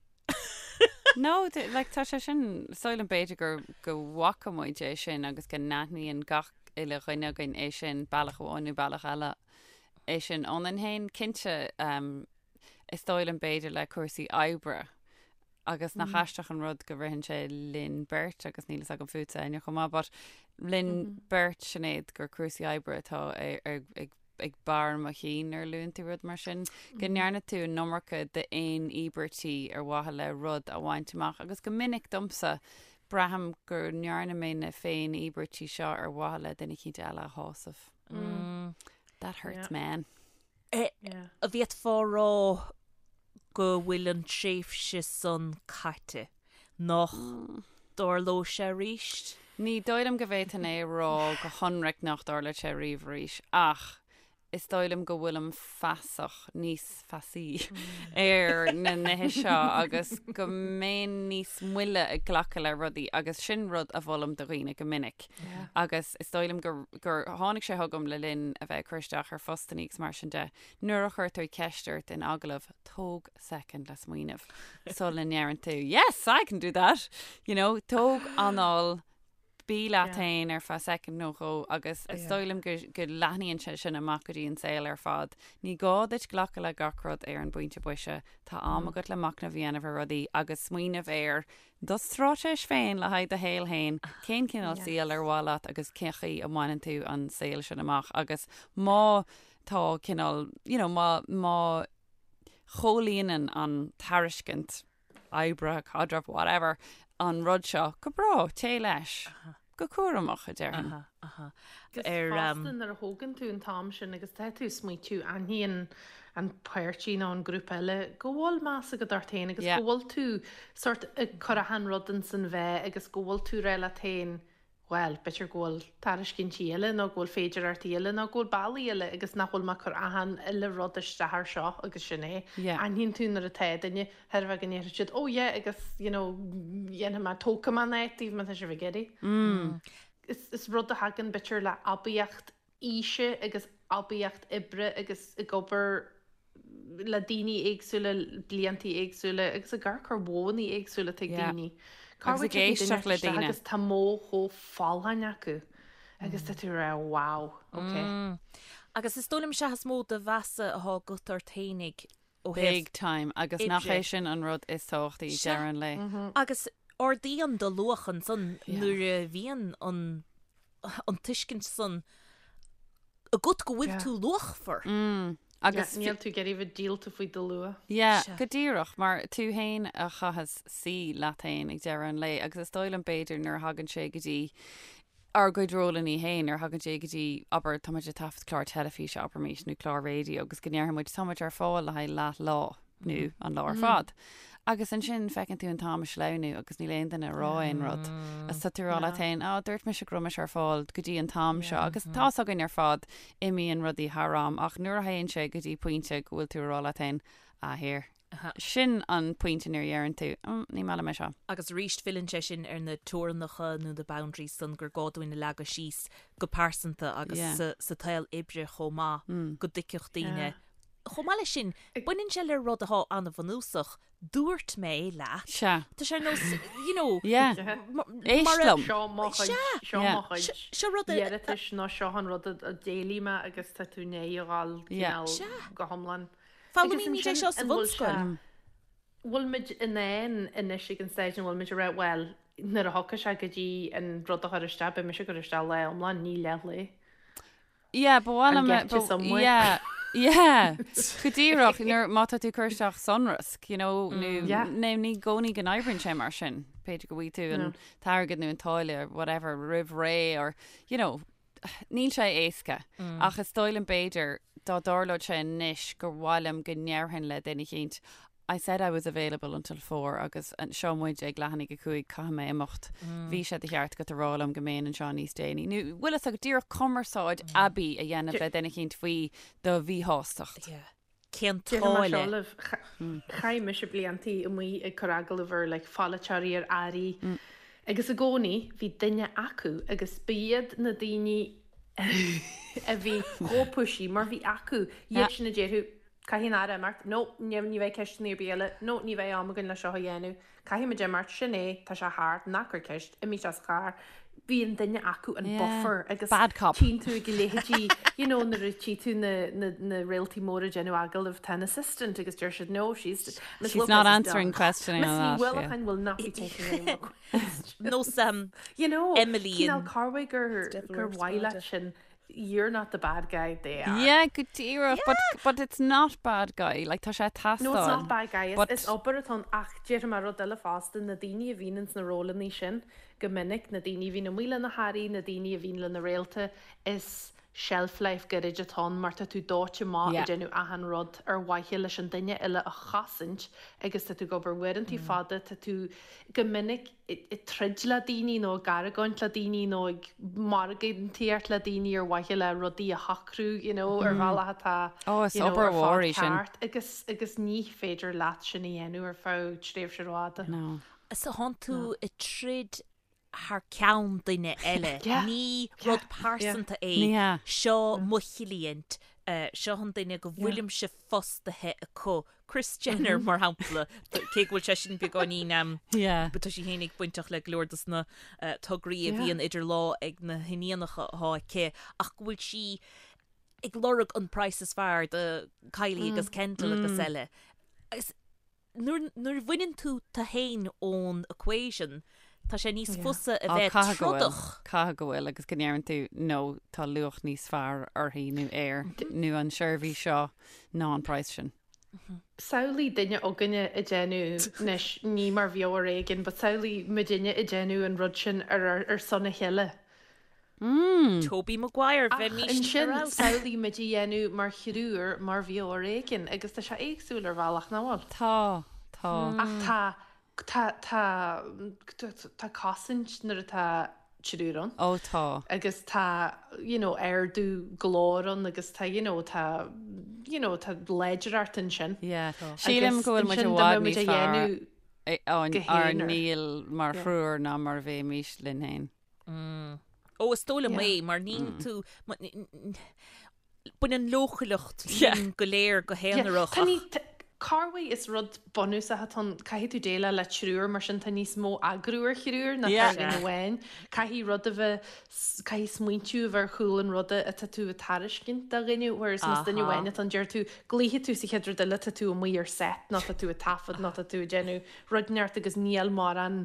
No, like tá sé sin, is dóigh liom b'fhéidir gur go bhfaca muid é sin agus go n-aithníonn gach uile dhuine againn é sin bealach amháin nó bealach eile. É sin ionainn féin, cinnte, is dóigh liom b'fhéidir le cúrsaí oibre agus nach aisteach an rud go ritheann sé linn beirt agus níl fhios agam fútsa Áine chomh maith, but linn beirt Sinéad gur cúrsaí oibre atá ag ag barr mo chinn nuair a luann tú rud mar sin, go ndearna tú an iomarca d'fhéin-íobairtí ar mhaithe le rud a bhaint amach agus go minic domsa braithim go ndearna mé na féin-íobairtí seo ar mhaithe le duine eicínt eile a shásamh. That hurts, man. An bhféadfá a rá. go bhfuil an tréimhse san caite, nach dtarlóidh sé arís? Ní dóigh liom go bhféadfainn é a rá go hionraic nach dtarlóidh sé riamh arís, ach is dóigh liom go bhfuilim feasach, níos feasaí ar na nithe seo agus go mbeinn níos moille ag glacadh le rudaí agus sin rud a mholaim do dhaoine go minic. Agus is dóigh liom gur, gur tháinig sé chugam le linn a bheith ag cur isteach ar phostannaí agus mar sin de, nuair a chuirtear ceist ort in agallamh, tóg soicind le smaoineamh sula ndeireann tú 'yes, I can do that', you know, tóg anáil, Bí leat féin ar feadh soicind nó dhó agus is dóigh liom go go leathnaíonn sé sin amach go dtí an saol ar fad. Ní gá duit glacadh le gach rud ar an bpointe boise. Tá am agat le machnamh a dhéanamh ar rudaí agus smaoineamh ar do straitéis féin le haghaidh do shaol féin, cén cineál saoil ar mhaith leat agus cén chaoi a mbaineann tú an saol sin amach agus má tá cineál, you know, má má chomhlíonann an tairiscint oibre, caidreamh, whatever, an rud seo, go breá, téigh leis. Go cúramach, a déarfainn. Agus fosta nuair a thógann tú an t-am sin agus tá tú ag smaoitiú, aithníonn an páirtí nó an grúpa eile go bhfuil meas agat ort féin agus go bhfuil tú sort ag cur achan rud ins an mheá agus go bhfuil tú ag rá leat féin bhuel, b'fhéidir go bhfuil tairiscintí eile nó go bhfuil féidearthachtaí eile nó go bhfuil bealaí eile agus nach bhfuil mé ag cur achan uile rud isteach ar seo agus sin é. Aithníonn tú nuair atá duine, thairbhe go ndéarfaidh siad, oh yeah agus you know dhéanfaidh mé, tógfaidh mé an áit daoibh má tá sibh ag iarraidh. Is, is rud a thagann b'fhéidir le aibíocht aoise agus aibíocht oibre agus ag obair le daoine éagsúla, bliantaí éagsúla agus ag amharc ar mhodhanna éagsúla atá ag daoine. Cá Agus ag éisteacht le daoine. Agus tá modh chomh folláin acu agus tá tú ag rá wow, ok. Agus is dóigh liom sea is mó de mheasa atá agat ort fhéinig ó thaobh Big time agus nach é sin an rud is tábhachtaí ag deireadh an lae. Agus ardaíonn do luach ansan nuair a bhíonn an an tuiscint san agat go bhfuil tú luachmhar. Agus níl tú ag iarraidh bheith díolta faoi do luach. Yeah, go díreach, mar tú fhéin a chaitheas suí leat fhéin ag deireadh an lae agus is dóigh liom b'fhéidir nuair a thagann sé go dtí ár gcuid rólannaí fhéin, nuair a thagann sé go dtí, abair, tá muid ag taifead clár teilifíse, abraimis, nó clár raidió agus go ndéarfaidh muid tá muid ar fáil le haghaidh leath lá nó an lá ar fad. Agus ansin feiceann tú an t-am ag sleamhnú agus níl aon duine ag rá aon rud. Agus tá tú ag rá leat féin, á, dúirt mise go raibh mise ar fáil go dtí an t-am seo. Agus tá's againn ar fad, imíonn rudaí thar am, ach nuair a théann sé go dtí pointe go bhfuil tú ag rá leat féin, ah, here. Sin an pointe nuair a dheireann tú, mm, ní maith liom é seo. Agus arís filleann sé sin ar na teorainneacha nó na boundaries san gur gá dúinn a leagadh síos go pearsanta agus sa tsaol oibre chomh maith go dtuigfeadh daoine Chomh maith leis sin, baineann sé le rud atá an-bhunúsach, dúirt mé leat. Sea. Tá sé ar nós, you know. Yeah. Éist liom. Seo mo chuid, seo mo chuid. Seo rud a. iarratais nó seo an rud a d'éiligh mé agus tá tú i ndiaidh a dhul cineál go hiomlán. Foghlaimímid é seo sa bhunscoil. Bhfuil muid in ann anois ag an staid ina bhfuil muid a rá, bhuel, nuair a thiocfaidh sé go dtí an rud a chur isteach, beidh mise ag cur isteach lá iomlán, ní leathlae. Yeah, ba mhaith liom Get you somewhere. Yeah, yeah. Go díreach, nuair má tá tú ag cur isteach sonrasc, you know, nó Yeah. nó ní i gcónaí go n-oibríonn sé mar sin. B'fhéidir go bhfaighidh tú an t-airgead nó an táille whatever roimh ré or, you know, níl sé éasca. Ach is dóigh liom b'fhéidir dá dtarlódh sé anois gur mhaith liom go ndéarfainn le duine eicínt, I said I was available until four agus seo muid ag leath i ndiaidh a 5, caithfidh mé imeacht. Bhí sé de cheart agat a rá liom go mbeinn anseo níos déanaí. Nó bhfuil fhios agat díreach cumarsáid aibí a dhéanamh le duine eicínt faoi do mhíshástacht. Yeah. Cén Déarfaidh mé seo táille? libh, chaith mise bliantaí amuigh ag cur agallamh ar like pholaiteoirí, ar airí agus i gcónaí bhí duine acu agus ba iad na daoine a bhí chomh pushy mar bhí acu, iad sin a déarfadh Caithfidh an Aire imeacht. No, ní ní bheidh ceisteanna ar bith eile. No, ní bheidh am againn le seo a dhéanamh. Caithfidh muid imeacht. Sin é, tá sé thart. Ná cuir ceist. Imigh as an charr. Bíonn duine acu an Yeah. buffer agus Bad cop. tchíonn tú ag a leithéidí, you know, nuair a tchí tú na, na, na réaltaí móra ag déanamh agallamh, tá an assistant agus deir siad, no, she's, Miss She's Lopez not is answering done. questioning Miss on Ní that, yeah. Uallacháin will not be taking any more questions. Nós um, You know, Emily cineál in corruair gur, Devil gur Wears mhaith Prada. leat sin You're not the bad guy, they are. Yeah, go díreach, but, but it's not bad guy, like tá sé ag teastáil. No, it's not bad guy, is, But- is obair atá ann ach déarfaidh mé rud eile fosta, na daoine a bhíonn ins na rólannaí sin go minic, na daoine a bhíonn amuigh le na hairí, na daoine a bhíonn le na réalta, is. shelf life gairid atá ann mar tá tú dóite amach ag déanamh achan rud ar mhaithe leis an duine eile a chosaint agus tá tú ag obair uaireantaí fada, tá tú go minic ag troid le daoine nó ag argóint le daoine nó ag margaíocht le daoine ar mhaithe le rudaí a shocrú you know ar bhealach atá Oh, is you know obair ar mhór fad í sin. ceart agus agus ní féidir leat sin a dhéanamh ar feadh tréimhse rófhada. No. So thánn tú ag troid thar ceann duine eile. Ní rud pearsanta é, seo mo chliant, seo an duine go bhfuilimse fostaithe acu. Kris Jenner, mar shampla, cé go bhfuil sé sin beagáinín, tá sí fhéinig bainteach le go leor dos na tograí a bhíonn idir lámha ag na hiníonacha atá aici, ach go bhfuil sí ag lorg an praghas is fearr do Kylie agus Kendall agus eile. Agus Nuair nuair a bhaineann tú tú fhéin ón equation, tá sé níos fusa a bheith Caithfidh go bhfuil, trodach. caithfidh go bhfuil agus go ndeireann tú no tá luach níos fearr uirthi nó air nó an seirbhís seo ná an praghas sin. Samhlaigh duine againne ag déanamh, anois ní mar bheo ar éigean, but samhlaigh muidinne ag déanamh an rud sin ar ar son a chéile. Toby Maguire, Ach bheimís ansin, ar fheabhas. samhlaigh muid a dhéanamh mar thriúr mar bheo ar éigean, agus tá sé éagsúil ar bhealach, nach bhfuil? Tá, tá. Ach tá, tá, tá, tá cosaint nuair atá triúr ann. Ó tá. Agus tá, you know, ardú glóir ann agus tá, you know, tá, you know, tá láidreacht ansin. Yeah. Sílim go bhfuil muid i bhfad níos fearr ár ndíol mar thriúr ná mar a bheimís linn féin. Ó, is dóigh liom é, mar níl tú, baineann leochaileacht linn go léir go haonarach. Tá ní, corruair is rud bunúsach atá ann, caithfidh tú déileáil le triúr, mar sin tá níos mó eagrú ar thriúr ná ar dhuine amháin. Caithfidh rud a bheith, caithfidh smaointiú a bheith ar chúl an ruda atá tú ag tairiscint do dhuine, whereas más duine amháin atá ann, deir tú, glaofaidh tú sa chéad rud eile, tá tú amuigh ar set nó tá tú ag taifead nó tá tú ag déanamh rud inteacht agus níl mórán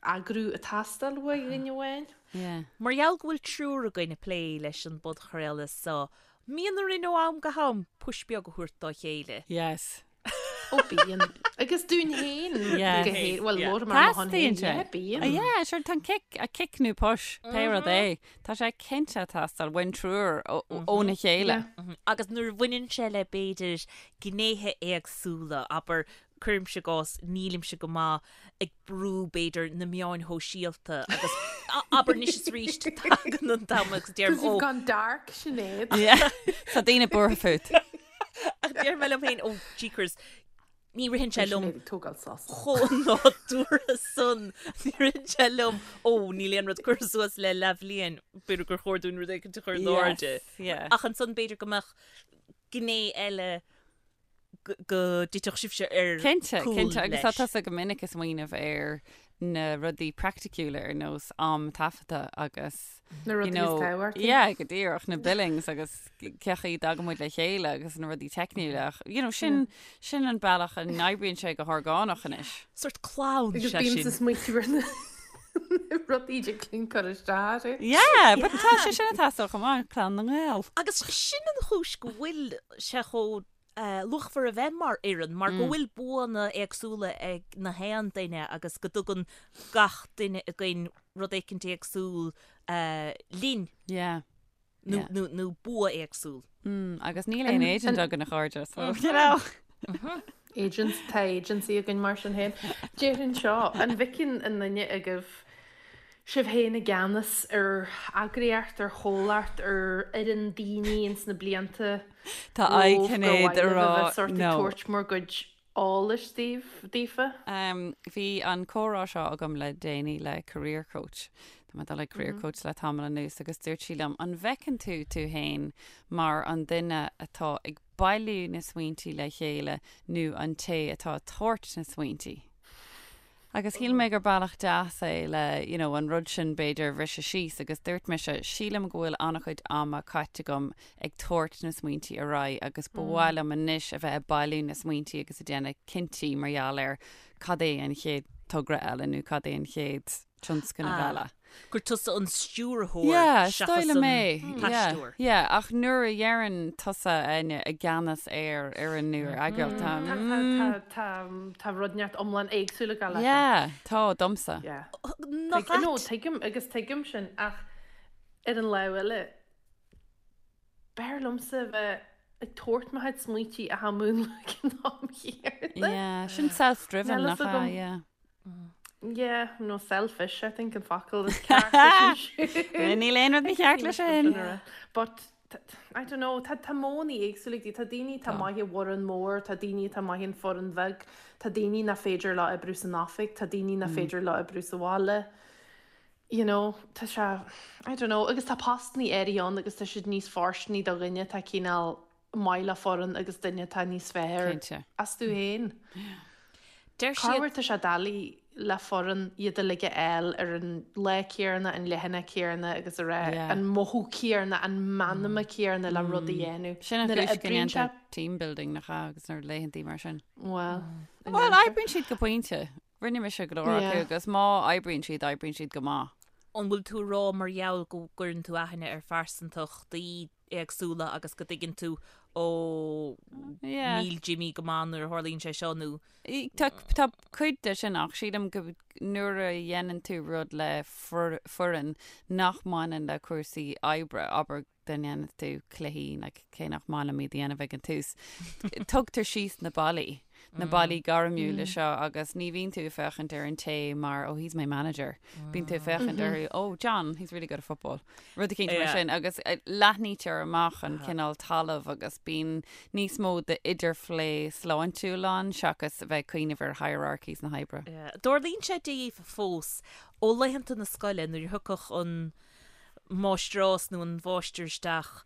eagrú ag teastáil uaidh dhuine amháin. Yeah. Mar gheall go bhfuil triúr againn ag plé leis an bpodchraoladh seo, mbíonn orainn ó am go ham push beag a thabhairt dá chéile. Yes. Ó bíonn. Agus dúinn féin. Yes. Go hé, bhuel, labhraím ar mo shon féin. Teastaíonn sé. Yeah, bíonn. Oh, yeah, sure, tá an kick, a kick nó push, pé rud é. Tá sé cinnte ag teastáil uainn triúr óna chéile. Yeah. Agus nuair a bhaineann sé le b'fhéidir gnéithe éagsúla, abair, cuirimse i gcás, nílimse go maith ag brú, b'fhéidir, na meáin shóisialta agus abair anois is arís tagann an t-am agus deirim, Because you've ó, gone dark, Sinéad. Yeah. Tá daoine buartha fút. ach deir mé liom féin, ó, jeekers, ní ritheann sé liom Sinéad ag tógáil sos. chomh nádúrtha san, ní ritheann sé liom, ó, níl aon rud curtha suas le leathbhliain, b'fhéidir gur chóir dúinn rud éicint a chur in airde. Yes, yeah. Ach ansan b'fhéidir go mbeadh gné eile go dtitfeadh sibhse ar Cinnte, cúl cinnte, agus tá leis. tusa go minic ag smaoineamh ar na rudaí praiticiúla ar nós am taifeadta agus Na you rudaí is know, tábhachtaí. yeah, go díreach, na billings agus cé chaoi a dtagann muid le chéile agus na rudaí teicniúla ach, you know, sin, sin an bealach a n-oibríonn sé go horgánach anois. Sort clann Agus sé bímse sin. ag smaointiú ar na rudaí a dtig cur isteach air. Yeah, but tá sé sin ag teastáil chomh maith, clann na nGael. Agus sin an chúis go bhfuil sé chomh luachmhar a bheith mar fhoireann, mar go bhfuil buanna éagsúla ag na haon duine agus go dtugann gach duine againn rud éicint éagsúil linn. Yeah. Nó, nó, nó bua éagsúil. Mm, agus níl aon agent againn a chairde, so, you know. Agents, tá agency againn mar sin féin. Déarfainn seo, an bhfeiceann aon duine agaibh sibh féin i gceannas ar eagraíocht, ar chomhlacht, ar fhoireann daoine ins na blianta Tá aghaidh romhaibh gur Shinéad mhaith a libh a rá bheith sórt ag no. tabhairt bhur gcuid eolais daoibh, daofa? Bhí an comhrá seo agam le déanaí le career coach. Tá mé ag dul ag career coach le tamall anuas agus dúirt sí liom, an bhfeiceann tú tú féin mar an duine atá ag bailiú na smaointí le chéile nó an té atá ag tabhairt na smaointí? Agus shíl mé gur bealach deas é le, you know, an rud sin b'fhéidir a bhriseadh síos agus dúirt mise, sílim go bhfuil an-chuid ama caite agam ag tabhairt na smaointí ar aghaidh agus ba mhaith liom anois a bheith ag bailiú na smaointí agus ag déanamh cinntí mar gheall ar cad é an chéad togra eile nó cad é an chéad tionscnamh eile. Gur tusa an stiúrthóir Yeah, is seachas dóigh liom an é. Yeah, t-aisteoir. yeah, ach nuair a dheireann tusa Áine i gceannas ar fhoireann nó ar eagraíocht, tá, Tá, mm, tá, tá, tá rud inteacht iomlán éagsúil ag gabháil leis. yeah, tá, domsa. Yeah. Nach Tuig, no, ait? tuigim agus tuigim sin ach ar an lámh eile. B'fhearr liomsa a bheith ag tabhairt mo chuid smaointí ach á múnlú ag an am chéanna. Yeah, sin self-driven Níl nach fhios ea, agam. yeah. Yeah, no selfish, I think an focal is ceart leis sin. Níl aon rud mícheart leis sin. But I don't know, tá tá modhanna éagsúla ag daoine. Tá daoine atá maith i bhfoireann mór, tá daoine atá maith in foireann bheag, tá daoine nach féidir leo oibriú san oifig, tá daoine nach féidir leo oibriú sa bhaile. You know, tá sé, I don't know, agus tá postannaí áirithe ann agus tá siad níos fóirsteanaí do dhuine atá cineál maith le foireann agus duine atá níos fearr Cinnte. astu féin. Deir siad. Corruair tá sé doiligh le foireann iad uilig a fháil ar an lá céanna, an leathanach céanna agus a rá Yeah. an mothú céanna, an meanma céanna le rud a dhéanamh. Sin an Nuair a chúis go oibríonn sé, ndéantar team building nach ea agus na laethantaí mar sin. Bhuel, Bhuel, oibríonn siad go pointe. Rinne mise go leor acu agus má oibríonn siad, oibríonn siad go maith. An bhfuil tú ag rá mar gheall go gcuireann tú aithne ar phearsantachtaí éagsúla agus go dtuigeann tú ó níl Jimmy go maith nuair a tharlaíonn sé seo nó. Tá tá cuid de sin ach sílim go nuair a dhéanann tú rud le foireann nach mbaineann le cúrsaí oibre, abair dá ndéanann tú cluichí, like, cé nach maith liom iad a dhéanamh ag an tús, tugtar síos na ballaí, na ballaí gairmiúla seo agus ní bhíonn tú ag féachaint ar an té mar, oh, he's my manager. Bíonn tú ag féachaint orthu, oh, John, he's really good at football. Rud eicínt mar sin agus leathnaítear amach an cineál talamh agus bíonn níos mó d'idirphlé sláintiúil ann seachas a bheith ag cuimhneamh ar hierarchies na hoibre. Tarlaíonn sé daoibh fós ó laethanta na scoile nuair a thiocfadh an máistreás nó an mháistir isteach,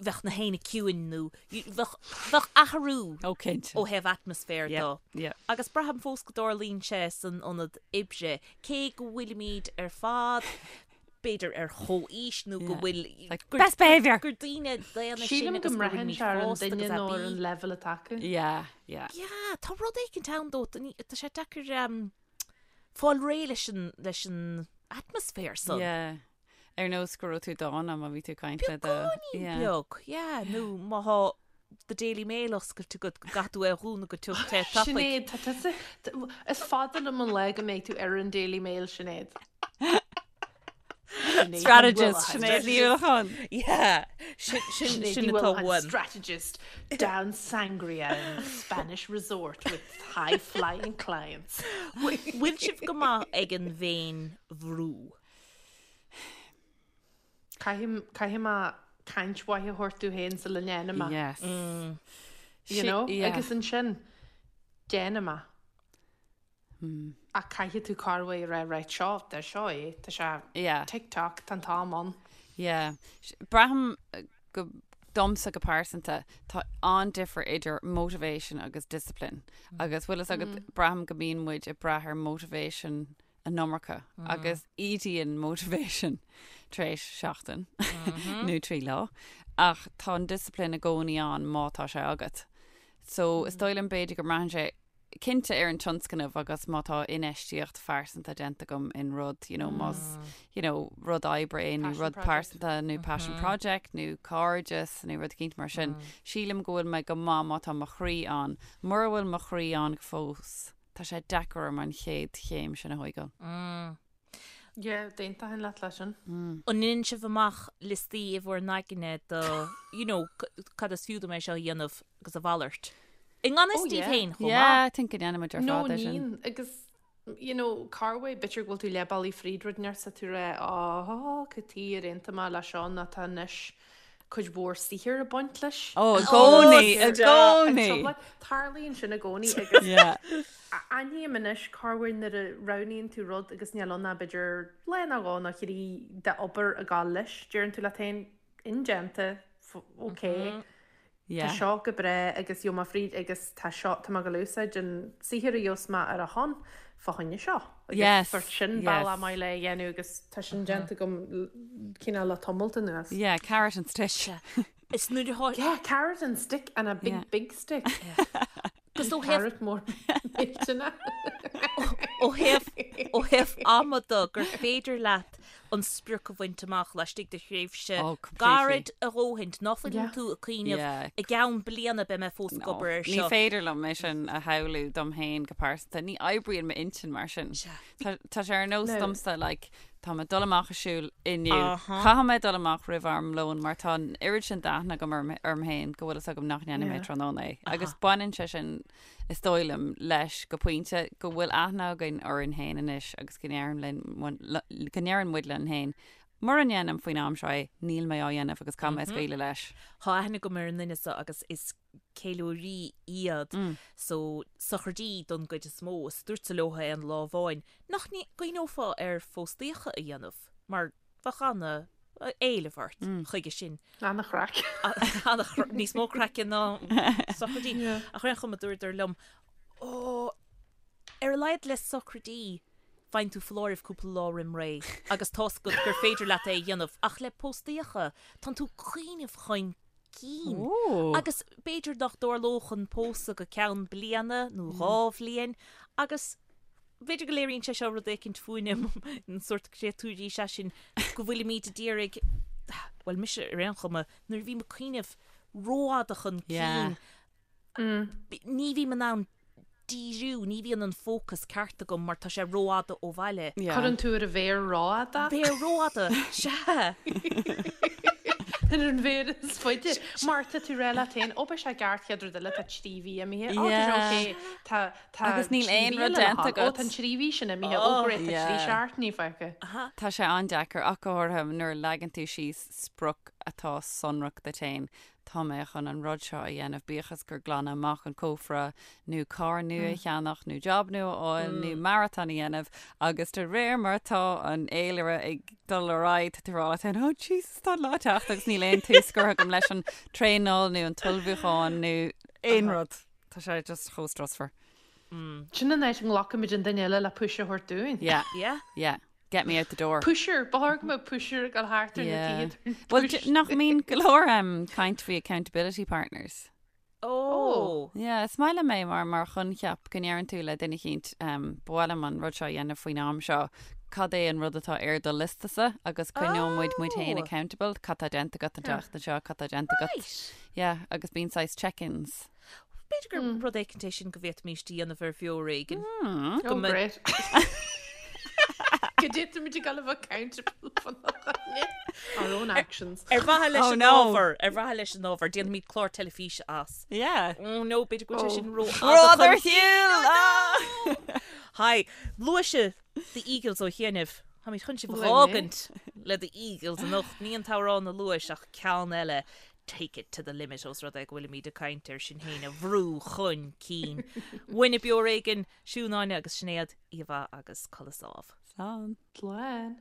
bheadh na héinne ciúin nó bheadh, bheadh athrú Ó, cinnte. ó thaobh atmaisféir Yeah, dó. yeah. Agus braithim fós go dtarlaíonn sé san ionad oibre, cé go bhfuilimid ar fad b'fhéidir ar chomhaois nó go Yeah. bhfuil Like, gur, best behaviour! gur daoine daonna sinn Sílim go agus go mbraitheann bhfuilimid sé ar an fásta duine agus nó ar aibí. an leibhéal atá acu. Yeah, yeah. Yeah, tá rud éicint ann dó, tá sé deacair um, fáil réidh leis an, leis an atmaisféar san. Yeah. Ar nós go raibh tú dána má bhí tú ag caint le do... Beagáinín Yeah. beag, yeah, nó má thá The Daily Mail oscailte agat go gcaithfidh tú é a dhúnadh go tiubh te tapaidh. Sinéad, tá tusa... Is fada liom an lá go mbeidh tú ar an Daily Mail, Sinéad. Strategist, Sinéad Ní Uallacháin. Yeah, sin, sin, Sinéad sin Ní atá Uallacháin, uaim. strategist down sangria in Spanish resort with high flying clients. Bhfuil sibh go maith ag an bhféin-bhrú? Caithfidh, caithfidh mé caint mhaith a thabhairt domh féin sula ndéanaim é. Yes. You know? Agus ansin, déanaim é. Ach caithfidh tú corruair a rá right seo, tá seo é, tá sé Yeah. tick tock, tá an t-am ann. Yeah. Braithim go domsa go pearsanta tá an-difear idir motivation agus discipline. Agus bhfuil fhios agat braithim go mbíonn muid ag brath ar motivation an iomarca agus ídíonn motivation tar éis seachtain nó 3 lá. Ach tá an discipline i gcónaí ann má tá sé agat. So is dóigh liom b'fhéidir go mbraitheann sé cinnte ar an tionscnamh agus má tá infheistíocht phearsanta déanta agam in rud, you know, más, you know, rud oibre é nó rud pearsanta nó passion project nó cairdeas nó rud eicínt mar sin, sílim go bhfuil mé go maith má tá mo chroí ann. Mura bhfuil mo chroí ann fós, tá sé deacair orm an chéad chéim sin a thóigeáil. Yeah, d'aontóinn leat leis sin. An ndéanann sibh amach liostaí i bhur n-aigne do, you know, cad is fiú dom é seo a dhéanamh agus a mhalairt? I ngan fhios Oh, daoibh yeah. féin chomh maith. Yeah, I think go ndéanaimid ar No, fad é sin. níonn, agus, you know, corruair, b'fhéidir go bhfuil tú leath bealaigh fríd rud inteacht 's tá tú ag rá, oh, cad chuige ar aontaigh mé le seo nó tá anois cuid mhór saothair ag baint leis. Ó, i gcónaí, i gcónaí! Tarlaíonn sin i gcónaí agus Yeah. aithním anois corruair nuair a roghnaíonn tú rud agus níl ann ach b'fhéidir lá nó dhó nó thrí d'obair ag gabháil leis, deireann tú leat féin, indéanta, ok, tá seo go breá agus gheobhaidh mé fríd agus tá seo, tá mé ag gabháil a úsáid an saothar a gheobhas mé ar a shon fá choinne seo. Agus Yes, sort sin bealach yes. maith le é a dhéanamh agus tá sin déanta agam cineál le tamalt anuas. Yeah, carrot and stick. Is nuair atá Yeah, carrot and stick and a big, Yeah. big stick. Agus ó thaobh Carrot mór millteanach. ó thaobh ó thaobh ama de gur féidir leat an sprioc a bhaint amach laistigh de thréimhse Oh, completely. gairid a dhóthaint, ná fuileann Yeah. tú ag cuimhneamh Yeah. i gceann bliana beidh mé fós ag No, obair ar ní seo. féidir liom é sin a shamhlú dom féin go pearsanta. Ní oibríonn m'intinn mar sin. Sea. Tá tá sé ar nós No. domsa like. Tá mé ag dul amach ag siúl inniu. Caithfidh mé dul amach roimh am lóin mar tá an oiread sin d'aithne agam orm orm féin go bhfuil fhios agam nach ndéanfaidh mé tráthnóna é. Agus baineann sé sin, is dóigh liom, leis go pointe go bhfuil aithne againn orainn féin anois agus go ndeireann linn go ndeireann muid linn féin, mura ndéanaim faoin am seo é, níl mé á dhéanamh agus caithfidh mé scaoileadh leis. Tá aithne agam ar an nduine seo agus is ceiliúraí iad so sochraidí don gcuid is mó. Is dúrtsa leo aon lá amháin nach gcuimhneofá ar phóstaíocha a dhéanamh mar bheadh ana éileamh ort chuige sin. Ana-chraic. Níos mó craice ná sochraidí. Ach ar aon chuma dúradar liom, ó, ar a laghad le sochraidí faigheann tú foláireamh cúpla lá roim ré agus tá's agat gur féidir leat é a dhéanamh ach le póstaíocha tánn tú ag cuimhneamh chun cinn. Agus b'fhéidir nach dtarlódh an pósadh go ceann bliana nó 2 bhliain agus b'fhéidir go léiríonn sé seo rud éicint fúinne, an sórt créatúirí is ea sinn, go bhfuilimid ag iarraidh, bhuel mise ar aon chuma, nuair a bhím ag cuimhneamh rófhada chun cinn, ní bhím in ann díriú, ní bhíonn an fócas ceart agam mar tá sé rófhada ó bhaile. Cuireann tú ar an mhéar rófhada. Mhéar rófhada, sea! Ar an mhéar is faide. Mar tá tú ag rá leat féin, ó beidh sé ceart chéad rud eile, tá 3 mhí imithe, ó tá sé ok, tá tá Agus níl aon rud déanta agat. Ó tá an 3 mhí sin imithe, ó great, tá 3 seachtainí fágtha. Tá sé an-deacair ach go háirithe nuair a leagann tú síos sprioc atá sonrach duit féin. tá mé chun an rud seo a dhéanamh, bíodh is gur glanadh amach an cófra, nó carr nua a cheannach, nó job nua a fháil, nó maratón a dhéanamh, agus de réir mar atá an fhéilire ag dul ar aghaidh, tá tú ag rá leat féin, oh Jesus, tá an lá ag teacht agus níl aon tús curtha agam leis an traenáil nó an t-ullmhúchán nó aon rud. Tá sé just chomh strusmhar. Sin an áit a nglacaimid an duine eile le push a thabhairt dúinn. Yeah. Yeah. Yeah. Get me out the door. Pusher, ba chóir go mbeadh pusher ag dul thart ar na tithe. Bhuel, nach mbíonn go leor caint faoi accountability partners? Oh. Yeah, is maith liom é mar mar choincheap go ndeireann tú le duine eicínt ba mhaith liom an rud seo a dhéanamh faoin am seo, cad é an rud atá ar do liostasa agus coinneoidh muid muid féin accountable, cad tá déanta agat an tseachtain seo, cad tá déanta agat. Right. Yeah, agus bíonn saghas check-ins. B'fhéidir gur rud éicint é sin go bhféadfaimis a dhéanamh ar Bheo Ar Éigean. Oh, great. Go dtéimid ag dul a bheith accountable our own actions. Ar mhaithe leis an ábhar, ar mhaithe leis an ábhar, déanfaimid clár teilifíse as. Yeah. Oh no, b'fhéidir go bhfuil sé sin ró Rud ar shiúl! Hi, luaigh sibh The Eagles ó chianaibh. Táimid chun sibh a dh'fhágaint le The Eagles anocht. Ní an t-amhrán a luais ach ceann eile. Take it to the limit os rud é go bhfuilimid ag caint ar sinn féin a bhrú chun cinn. Uainne Beo Ar Éigean, Siún Áine agus Sinéad, oíche mhaith agus codladh sámh. Slán. Slán.